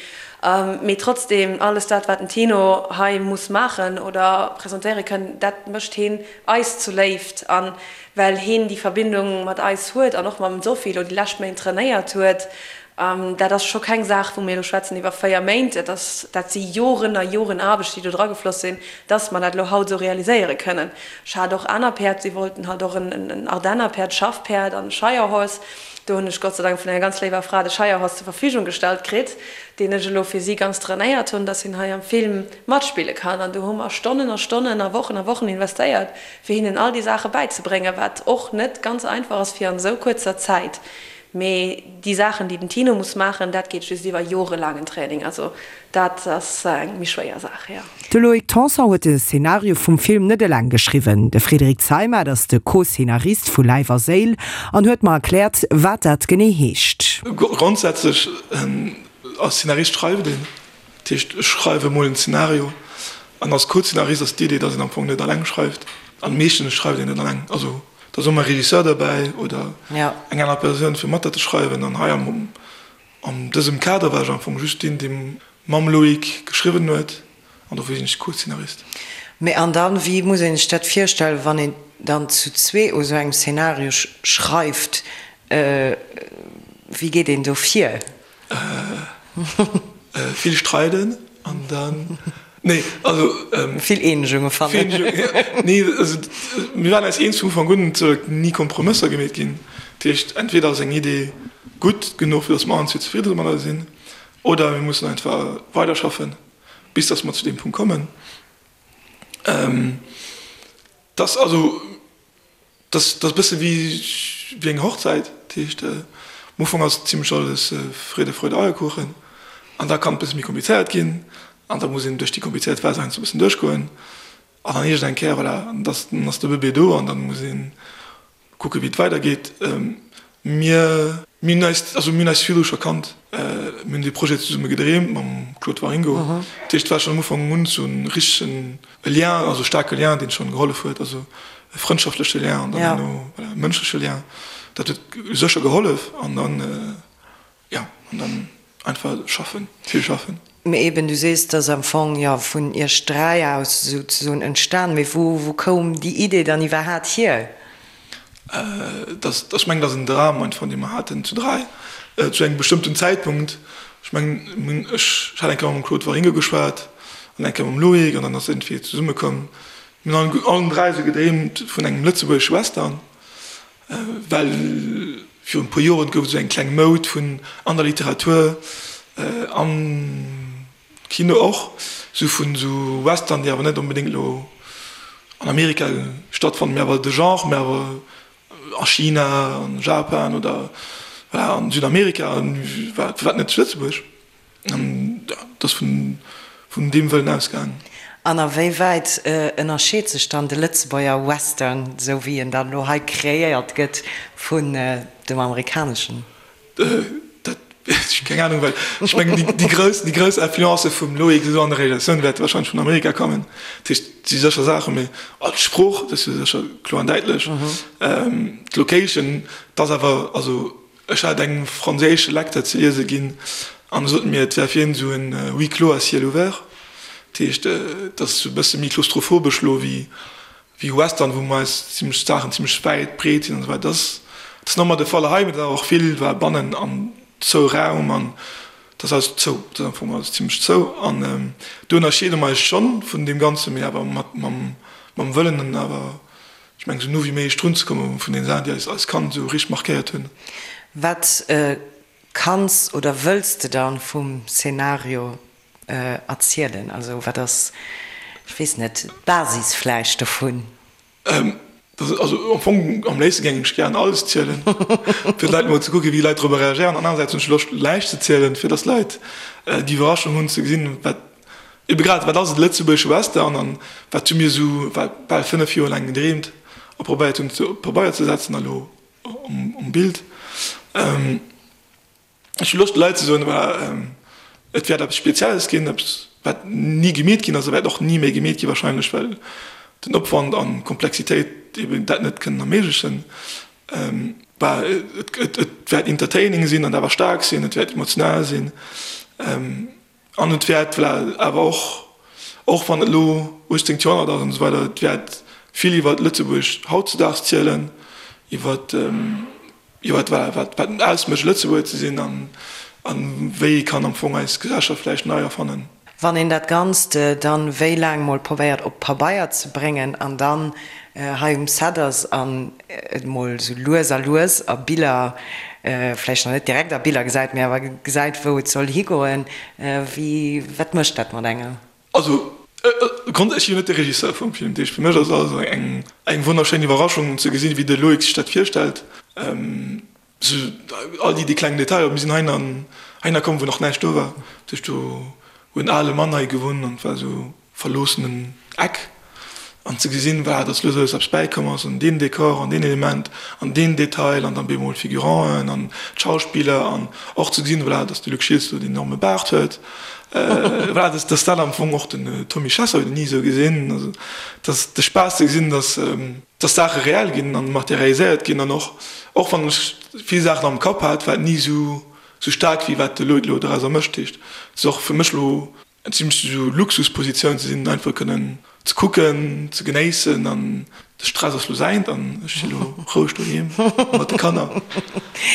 Mee trotzdem, alles dat, wat den Tino hei muss maachen oder presentéiere kënnen, dat mécht heen eis zu Léift. A well heen déi Verbindung mat eis huet an och mam Sophie elo déi lescht Méint trainéiert huet, dat ass scho keng Saach, wou mir elo schwätzen iwwer 4 Méint, dat ass, dat si Joren a Joren Aarbecht, déi do dragefloss sinn, dass mer dat elo haut esou realiséiere kënnen. Ech hat och aner Päerd, si wollten halt och en Ardennerpäerd, Schaffpäerd an e Shire Horse. Do hunn ech Gott sei Dank vun enger ganz léiwer Fra de Shire Horse zur Verfügung gestallt kritt, deen ech elo fir si ganz trainéiert hunn, dass hien hei am Film matspille kann. An do hu mer Stonnen a Stonnen a Wochen a Wochen investéiert, fir hinnen all déi Saache bäizebréngen, wat och net ganz einfach ass fir an esou kuerzer Zäit. Mee déi Saachen, déi den Tino muss maachen, dat geet just iwwer jorelaangen Training. Also dat ass eng méi schwéier Saach, jo.
De Loïc Tanson huet de Szenario vum Film net eleng geschriwwen. De Frédéric Zeimet ass de Co-Szenarist vu Läif a Séil an huet mer erkläert, wat dat genee heescht.
Grondsätzlech als Szenarist schreift een, dat heescht ech schreiwe mol en Szenario an als Co-Szenarist ass d'Idee, datt een am Fong net alleng schreift an meeschtens schreift een net alleng, also et ass ëmmer e Regisseur derbäi oder eng aner Persoun fir mat dat ze schreiwen an hei am An dësem Kader war ech am Fong just deen, dee mam Loïc geschriwwen huet, an dofir sinn ech Co-Szenarist.
Mee an dann, wéi muss een sech dat virstellen, wann een dann zu zwee u sou engem Szenario schreift, wéi geet een do vir?
Vill streiden an dann, nee, also.
Vill Eenegunge fannen.
Nee, also mir waren eis eens vun Ufank un, et soll ni Kompromësser gemeet ginn. Dat heescht, entweder ass eng Idee gutt genuch, fir datt mer allen zwee zefridde domadder sinn, oder mir mussen einfach weiderschaffen, bis datt mer zu deem Punkt kommen. Dass also, dass ass e bësse wéi wéi eng Hochzäit. Dat heescht, am Ufank ass zimlech alles Friede, Freude, Eierkuchen an da kann et e bësse méi komplizéiert ginn an da muss een duerch déi komplizéiert Phas heiansdo e bëssen duerchgoen an dann iergend eng Kéier, voilà, dann ass de Bëbee do an dann muss een Kucke wéi et weider geet. Mir hunn eis, also mir hunn eis virdru scho kannt. Mir hunn dee Projet zesumme gedreemt mam Claude Waringo. Dat heescht, et war schonn am Ufank un esou en richtegen Lien, also e staarke Lien, deen schonn gehollef huet, also e frëndschaftleche Lien an dann herno, voilà, e mënschleche Lien. Dat huet sécher gehollef an dann, Jo, an dann einfach schaffen, vill schaffen.
Mee eben, du sees, et ass am Fong jo vun iech 3 aus souzesoen entstan. Mee wou, wou koum déi Idee dann iwwerhaat hier?
Dass, ech mengen, dat ass en Dram einfach, dee mer haten zu 3, zu engem bestëmmten Zäitpunkt. Ech mengen, ech hat eng Kéier mam Claude Waringo geschwat an eng Kéier mam Loïc an dann ass iergendwéi zesummekomm. Mir hunn allen 3 esou gedreemt vun engem lëtzebuergesche Western. Well virun e puer Joren gouf et esou eng kleng Moud vun an der Literatur, am Kino och, esou vun esou Western, déi awer net onbedéngt elo an Amerika stattfannen, mee awer de Genre, mee awer a China, an Japan oder voilà an Südamerika, firwat net zu Lëtzebuerg? An dat ass vun deem Wëllen ausgaangen.
An a wéi wäit ënnerscheet sech dann de Lëtzebuerger Western, esou wéi en dann elo hei kreéiert gëtt, vun dem amerikaneschen?
Dat, keng Anung, well ech mengen, déi grouss, déi grouss Influencë vum Loïc esou an der Realisatioun wäerte warscheinlech vun Amerika kommen. Dat heescht, et si sécher Saachen, mee d'Sprooch, dat ass jo sécher kloer an däitlech. D'Location, dat ass awer, also Ech hat engem franséische Lecteur ze liese ginn an e sot mir, et wär fir hien esou en huis clos à ciel ouvert. Dat heescht, et ass esou e bësse méi klaustrophobesch elo wéi wéi Western, wou meist zimlech d'Saachen zimlech wäit, breet sinn an esou weider. Dat ass, dat ass normal de Fall hei, mee et ass awer och vill war bannen an zou Raum an dat ass alles zou, dat ass am Fong alles zimlech zou an do ënnerscheede mer eis schonn vun deem Ganzen, mee awer mat mam mam Wëllen an awer, ech mengen, esou no wéi méiglech drun ze komme vun den Saachen, déi eis als Kand esou richteg markéiert hunn.
Wat kanns oder wëlls de dann vum Szenario erzielen? Also wat ass, ech weess net, d'Basis vläicht dovun?
Also am Fong am léifste géing ech gären alles zielen, fir d'Leit mol ze kucken, wéi d'Leit dorobber reagéieren. An anerersäits hunn ech Loscht näischt ze zielen, fir datt d'Leit déi Iwwerraschung hunn ze gesinn, wat ebe grad, wat ass e lëtzebuergesche Western an wat hu mir esou bal 5 Joer laang gedreemt a probéiert hunn op Pabeier ze setzen a lo um Bild. Ech hu Loscht de Leit ze soen, voilà, et wäert eppes Spezielles ginn, eppes wat ni gemeet ginn ass a wäert och ni méi gemeet gi wahrscheinlech, well den Opwand an d'Komplexitéit eben dat net kënnen erméiglechen. Bah, et wäert entertaining sinn an awer staark sinn, et wäert emotional sinn an et wäert, voilà, awer och, och wann et elo 18. Joerhonnert ass an esou weider, et wäert vill iwwer Lëtzebuerg hautzedaags zielen, iwwer Jo, wat war, wat wat ausmécht Lëtzebuerger ze sinn an an wéi ee kann am Fong eis Gesellschaft vläicht nei erfannen.
Wann een dat Ganzt dann wéi laang mol probéiert op Pabeier ze bréngen an dann hei um Set ass an et mol sou lues a lues a Biller, vläicht nach net direkt a Biller gesäit, mee awer gesäit wou et soll higoen, wéi, wat mécht dat mat engem?
Also, ech sinn jo net de Regisseur vum Film, dat heescht fir mech ass et also eng eng wonnerschéin Iwwerraschung ze gesinn, wéi de Loïc sech dat virstellt, sou all déi déi kleng Detailer. Mir sinn heihin heihinner komm, wou nach näischt do war, dat heescht do huet en ale Mann hei gewunnt an et war esou verloossenen Eck. An ze gesinn, voilà, dass lues a lues eppes bäikomm ass an deen Dekor an deen Element an deen Detail an dann bemol d'Figuranten an d'Schauspiller an och ze gesinn, voilà, dass de Luc Schiltz do deen enorme Baart huet, voilà, dass dass dat am Fong och den Tommy Chessel huet een ni esou gesinn, also dass de Spaass ze gesinn, dass dass Saache reell ginn an materialiséiert ginn an och och wann ech vill Saachen am Kapp hat, war et ni esou esou staark wéi wat de Loïc elo dorauser mécht. Dat heescht, et ass och fir mech elo Eng zimmlech esou Luxuspositioun ze sinn, einfach kënnen ze kucken, ze genéissen an de Stress ass lo säint an ech si lo roueg doheem mat de Kanner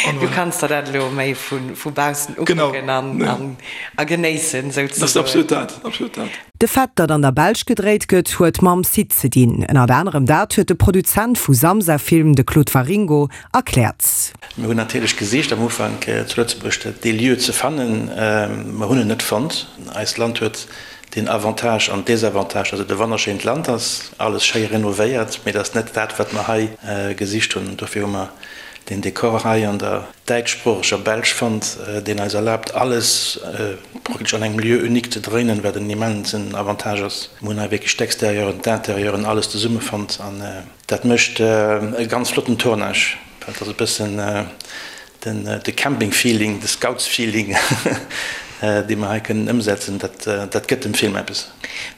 an Du kanns der dat elo méi vu baussen ukucken an a genéissen
souzesoen. Dat ass absolut dat, absolut dat.
De Fait, datt an der Belsch gedréit gëtt, huet mam Site ze dinn. Ënnert anerem dat huet de Produzent vu Samsa Film, de Claude Waringo, erkläert.
Mir hunn natierlech gesicht am Ufank zu Lëtzebuerg dee Lieu ze fannen. Mer hunn en net fonnt. Eist Land huet den Avantage an Desavantage, dass et e wonnerschéint Land ass, alles schéi renovéiert, mee et ass net dat, wat mer hei gesicht hunn. Dofir hu mer deen Dekor hei an der däitschsproocheger Belsch fonnt, deen eis erlaabt, alles praktesch an engem Lieu unique ze dréinen, wat en immensen Avantage ass. Mer hunn hei wierklech d'Extérieuren, d'Intérieuren, alles zesumme fonnt an Dat mécht e ganz flotten Tournage, well et ass e bëssen de Camping-Feeling, de Scouts-Feeling, dee mer hei kënnen ëmsetzen. Dat gëtt dem Film eppes.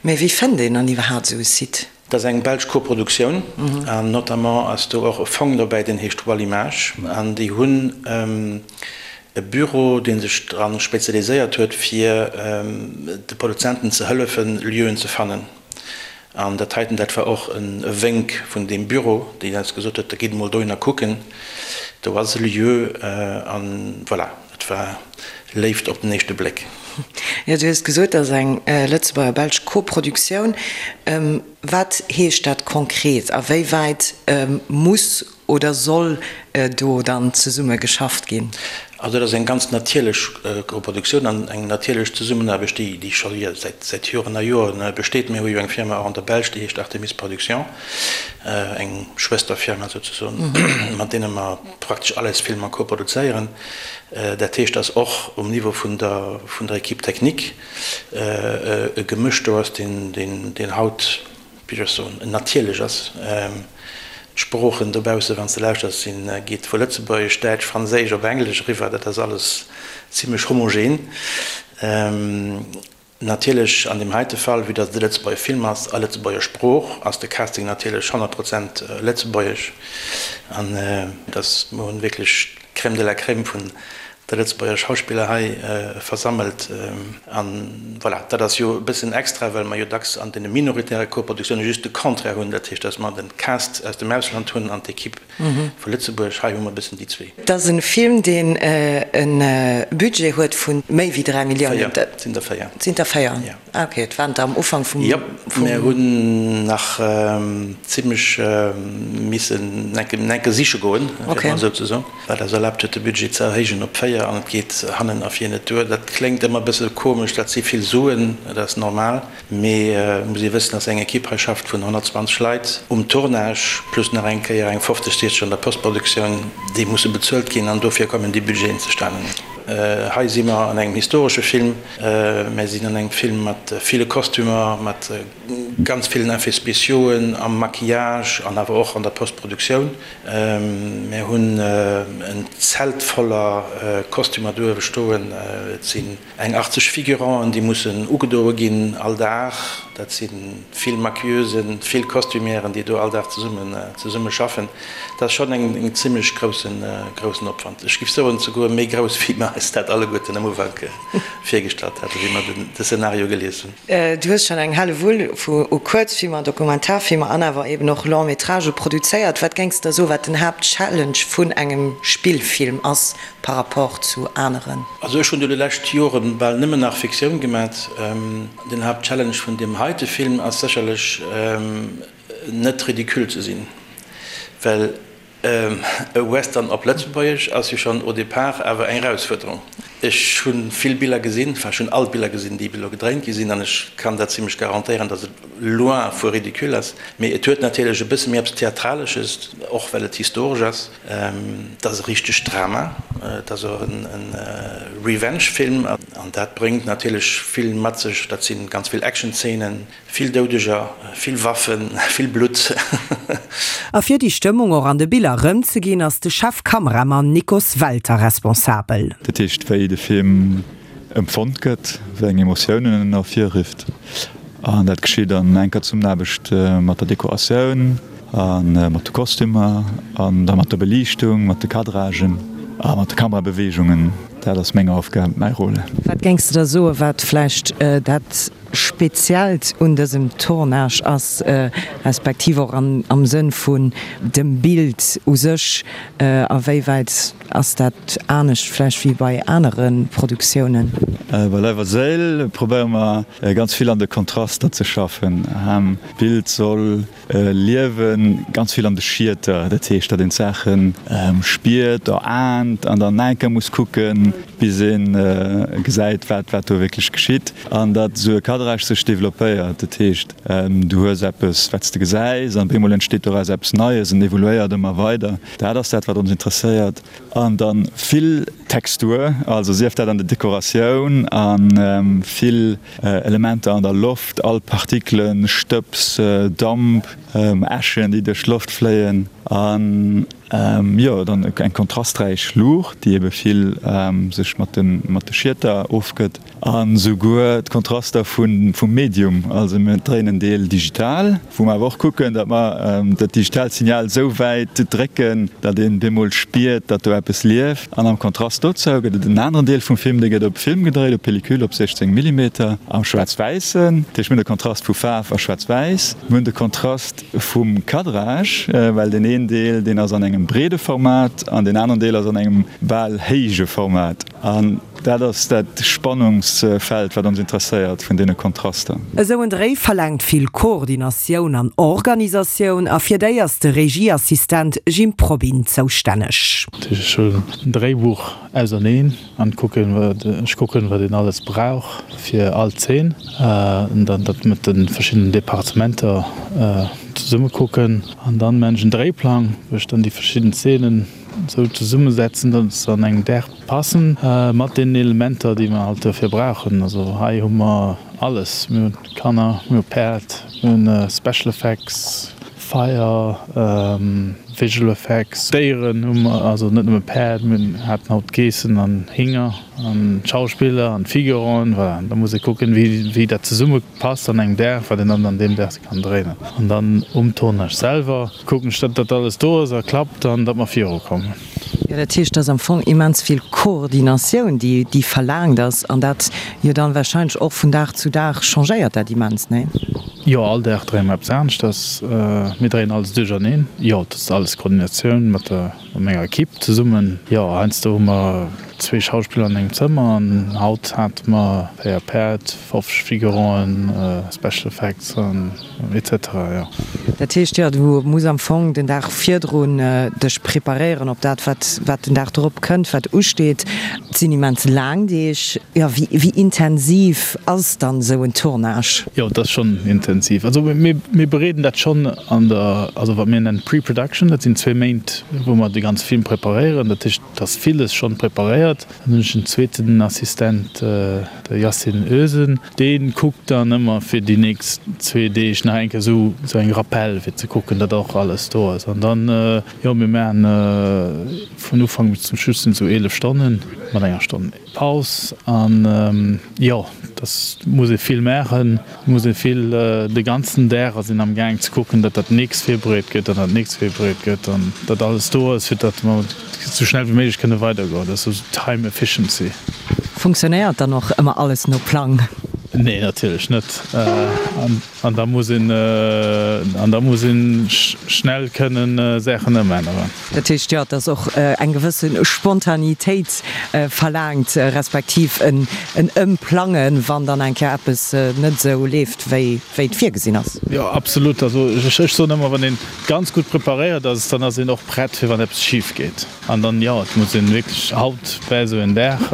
Mee wéi fënnt een dann iwwerhaapt esou e Site?
Dat ass eng belsch Koproduktioun an notamment ass do och e Fong dobäi, deen heescht Wallimage an déi hunn e Büro, dee sech dra spezialiséiert huet, fir de Produzenten ze hëllefen, Lieuen ze fannen. An dat heiten, dat war och e Wénk vun deem Büro, deen eis gesot huet, da gitt emol dohinner kucken, do ass e Lieu. An voilà, et war Léift op den éischte Bléck.
Jo, du hues gesot, dat ass eng lëtzebuerger-belsch Koproduktioun. Wat heescht dat konkret? A wéi wäit muss Oder soll do dann zesumme geschafft ginn?
Also dat ass eng ganz natierlech Koproduktioun an eng natierlech Zesummenaarbecht, déi déi scho säit Joren a Joren besteet. Mir hu jo eng Firma och an der Belsch, déi heescht Artemis Production, eng Schwësterfirma souzesoen, mat deene mer praktesch all eis Filmer koproduzéieren. Dat heescht, datt och um Niveau vun der vun der Équipe technique e Gemësch do ass, deen deen haut, wéi soll ech soen, natierlech ass. D'Sproochen dobausse, wann s de lauschters, sinn, geet vu Lëtzebuergesch, Däitsch, Franséisch op Englesch eriwwer. Dat ass alles zimlech homogen. Natierlech an deem heite Fall, vue dass et e Lëtzebuerger Film ass a Lëtzebuerger Sprooch, ass de Casting natierlech 100 Prozent lëtzebuergesch. An dass, mer hunn wierklech d'Crème de la Crème vun. De Lëtzebuerger Schauspiller hei versammelt. An voilà, dat ass jo e bëssen extra, well mer jo dacks an deene minoritäre Koproduktioune just de Contraire hunn, dat heescht, datt mer de Cast aus dem Ausland hunn an d'Ekipp vu Lëtzebuerg. Hei hu mer e bëssen déi zwee.
Et ass e Film, deen e Budget huet vu méi wéi 3 Milliounen.
Véier, et sinn der véier.
Et sinn der véier.
Jo.
Ah ok, et waren der am Ufank vum.
Jop, mir hunn nach zimlech missen enke siche goen, fir et mol esou ze soen, wat eis erlaabt huet de Budget ze erhéijen op 4 an et geet hannen a vir net duer. Dat kléngt ëmmer e bësse komesch, dat si vill Suen, dat ass normal, mee et muss ee wëssen, dass eng Ekipp hei schafft vun 120 Leit um Tournage, plus nach eng Kéier eng 50, 60 an der Postproduktioun, déi musse bezuelt ginn an dofir kommen déi Budgeten zustanen. Hei si mer an engem historesche Film. Mär sinn an engem Film mat ville Kostümer, mat ganz villen Effets spéciauxen, am Maquillage an awer och an der Postproduktioun. Mär hunn en Zelt voller Kostümer do uewe stoen. Et sinn eng 80 Figuranten, déi mussen ugedoe ginn all Dag. Dat si vill Maquilleusen, vill Costumièren, déi do all Dag zesumme schaffen. Dat ass schonn en zimlech groussen Opwand. Ech géif soen, souguer méi grouss, wéi mer eis dat alleguerten am Ufank virgestallt haten, wéi mer de Szenario gelies hunn.
Du hues schonn eng Hellewull u Kuerzfilmer, Dokumentarfilmer an awer eben och Long-métragë produzéiert. Wat géings de da soen, wat den Haaptchallenge vun engem Spillfilm ass par rapport zu aneren?
Also ech hunn do déi lescht Joren bal nëmmen nach Fiktioun gemat. Den Haaptchallenge vun deem heite Film ass sécherlech, net ridicule ze sinn, well e Western op Lëtzebuergesch ass jo schonn au départ awer eng Erausfuerderung. Ech hu vill Biller gesinn, enfin ech hunn all d'Biller gesinn, déi bis elo gedréint gi sinn, an ech kann dat zimlech garantéieren, datt et loin vu ridicule ass. Mee et huet natierlech e bësse méi eppes Theatralesches, och well et historesch ass. Et ass e richtegt Drama, et ass och e Revenge-Film, an dat bréngt natierlech vill mat sech. Dat si ganz vill Action-Zeenen, Vill Doudeger, vill Waffen, vill Blutt.
A fir déi Stëmmung och an de Biller erëmzeginn, ass de Chefkameramann Nikos Welter responsabel.
Dat heescht, wéi de Film empfonnt gëtt, wéi eng Emotiounen en ervirrifft. An dat geschitt an enker Zesummenaarbecht mat der Dekoratioun a mat de Kostümer an da mat der Beliichtung, mat de Cadragen a mat de Kamerabeweegungen. Dat ass meng Aufgab, mäi Rôle.
Wat géings de da soen, wat vläicht dat Speziellt un dësem Tournage ass, respektiv och am Sënn vun dem Bild u sech, a wéi wäit ass dat anescht vläicht wéi bei anere Produktiounen?
Bei Leif a Séil probéiere mer ganz vill an de Kontraster ze schaffen. D'Bild soll Liewen ganz vill an de Schieter, dat heescht, datt een d'Saache spiert, eraant an dann nach eng Kéier muss kucken, bis ee gesäit, wat wat do wierklech geschitt an datt esou e Cadrage sech developpéiert. Dat heescht, du hues eppes, wat s de gesäis an op eemol entsteet doraus eppes Neies an evoluéiert ëmmer weider. Dat ass dat, wat ons interesséiert. An dann vill Textur, also sief dat an der Dekoratioun a vill Elementer an der Loft, all Partikelen, Stëbs, Damp, Äschen, déi duerch d'Loft fléien an jo dann eng kontrasträich Luucht, déi ebe vill sech mat de Schieter ofgëtt. An esouguer d'Kontraster vum Medium, also mir dréinen en Deel digital, wou mer awer och kucken, datt mer dat digitaalt Signal esou wäit drécken, datt een bemol spiert, datt do eppes lieft. An am Kontrast dozou gëtt et en aneren Deel vum Film, dee gëtt op Film gedréit, op Pellicule, op 16 Millimeter, am Schwaarz-Wäissen. Dat heescht, mir hunn de Kontrast vu Faarf a Schwaarz-Wäiss, mir hunn de Kontrast vum Cadrage, well deen een Deel, deen ass an engem breede Format an deen aneren Deel ass an engem bal héije Format. An dat ass dat Spannungsfeld, wat ons interesséiert vun deene Kontraster.
Esou en Dréi verlaangt vill Koordinatioun an Organisatioun a fir déi ass de Regieassistent Jim Probyn zoustänneg.
Ech huelen en Dréibuch auserneen an kucken wat ech kucken wat een alles brauch fir all Zeen an dann dat mat de verschiddenen Departementer zesumme kucken an dann maan ech en Dréiplang wou ech dann déi verschidden Zeenen esou zesummesetzen datt se an engem Dag passen mat deenen Elementer déi mer halt dofir brauchen. Also hei hu mer alles, mir hunn Kanner, mir hu Päerd, mir hunn Special Effects, Feier, Visual Effects, Déieren hu mer, also net nëmme Päerd, mir haten haut Geessen an Hinger an Schauspiller an Figuranten, voilà. Da muss ee kucken, wéi dat zesumme passt an engem Dag, wat een dann an deem Dag kann dréinen. An dann um Tournage selwer kucken ech, datt dat alles do ass a klappt an datt mer virukommen.
Jo, dat heescht, et ass am Fong immens vill Koordinatioun, déi, déi verlaangt ass, an dat jo dann wahrscheinlech och vun Dag zu Dag changéiert dat immens, nee?
Jo, all Dag dréie mer eppes aneschters. Mir dréien alles duercherneen. Jo, dat ass alles Koordinatioun mat der, mat menger Equipe zesummen. Jo, heiansdo hu mer zwee Schauspiller an engem Zëmmer an haut hate mer 4 Päerd, 50 Figuranten, Special Effects an etc. Jo.
Dat heescht, jo, du muss am Fong den Dag virdrun dech preparéieren op dat, wat, wat den Dag drop kënnt, wat usteet. Et sinn immens laang Deeg. Jo, wéi, wéi intensiv ass dann esou en Tournage?
Jo, et ass schonn intensiv. Also mir, mir bereeden dat schonn an der, also wat mir nennen Pre-Production, dat sinn zwee Méint, wou mer de ganze Film preparéieren. Dat heescht, et ass villes schonn preparéiert. Dann hunn ech en zweeten Assistent, de Yasin Özen, dee kuckt dann ëmmer fir déi nächst zwee Deeg nach eng Kéier esou eng Rappel, fir ze kucken, datt och alles do ass. An dann, jo, mir maachen vun Ufank bis zum Schluss sinn et esou 11 Stonnen, mat enger Stonn Paus. An jo, dass muss ee vill maachen, muss ee vill, de ganzen Dag ass een am Gaang ze kucken, datt dat nächst virbereet gëtt an dat nächst virbereet gëtt an datt alles do ass, fir datt mer sou schnell wéi méiglech kënne weidergoen. Dat ass esou Time Efficiency.
Funktionéiert dann och ëmmer alles no Plang?
Nee, natierlech net. An da muss een, an da muss een schnell kënnen Saachen ëmänneren.
Dat heescht, jo, et ass och eng gewësse Spontanitéit verlaangt, respektiv en Ëmplangen, wann dann eng Kéier eppes net esou leeft, wéi et virgesinn ass.
Jo, absolut. Also ech soen ëmmer, wann een ganz gutt preparéiert ass, dann ass een och prett fir wann eppes schif geet. An dann, jo, et muss een wierklech, haut war esou en Dag,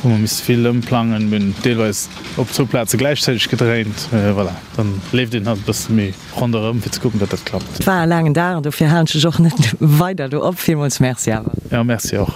wou mer misste vill ëmplangen, mir hunn deelweis op zwou Plaze gläichzäiteg gedréint, voilà, dann leeft een halt e bësse méi ronderëm fir ze kucken, datt dat klappt.
Et war e laangen Dag an dofir halen ech dech och net weider do op. Villmools Merci awer.
Jo, Merci och.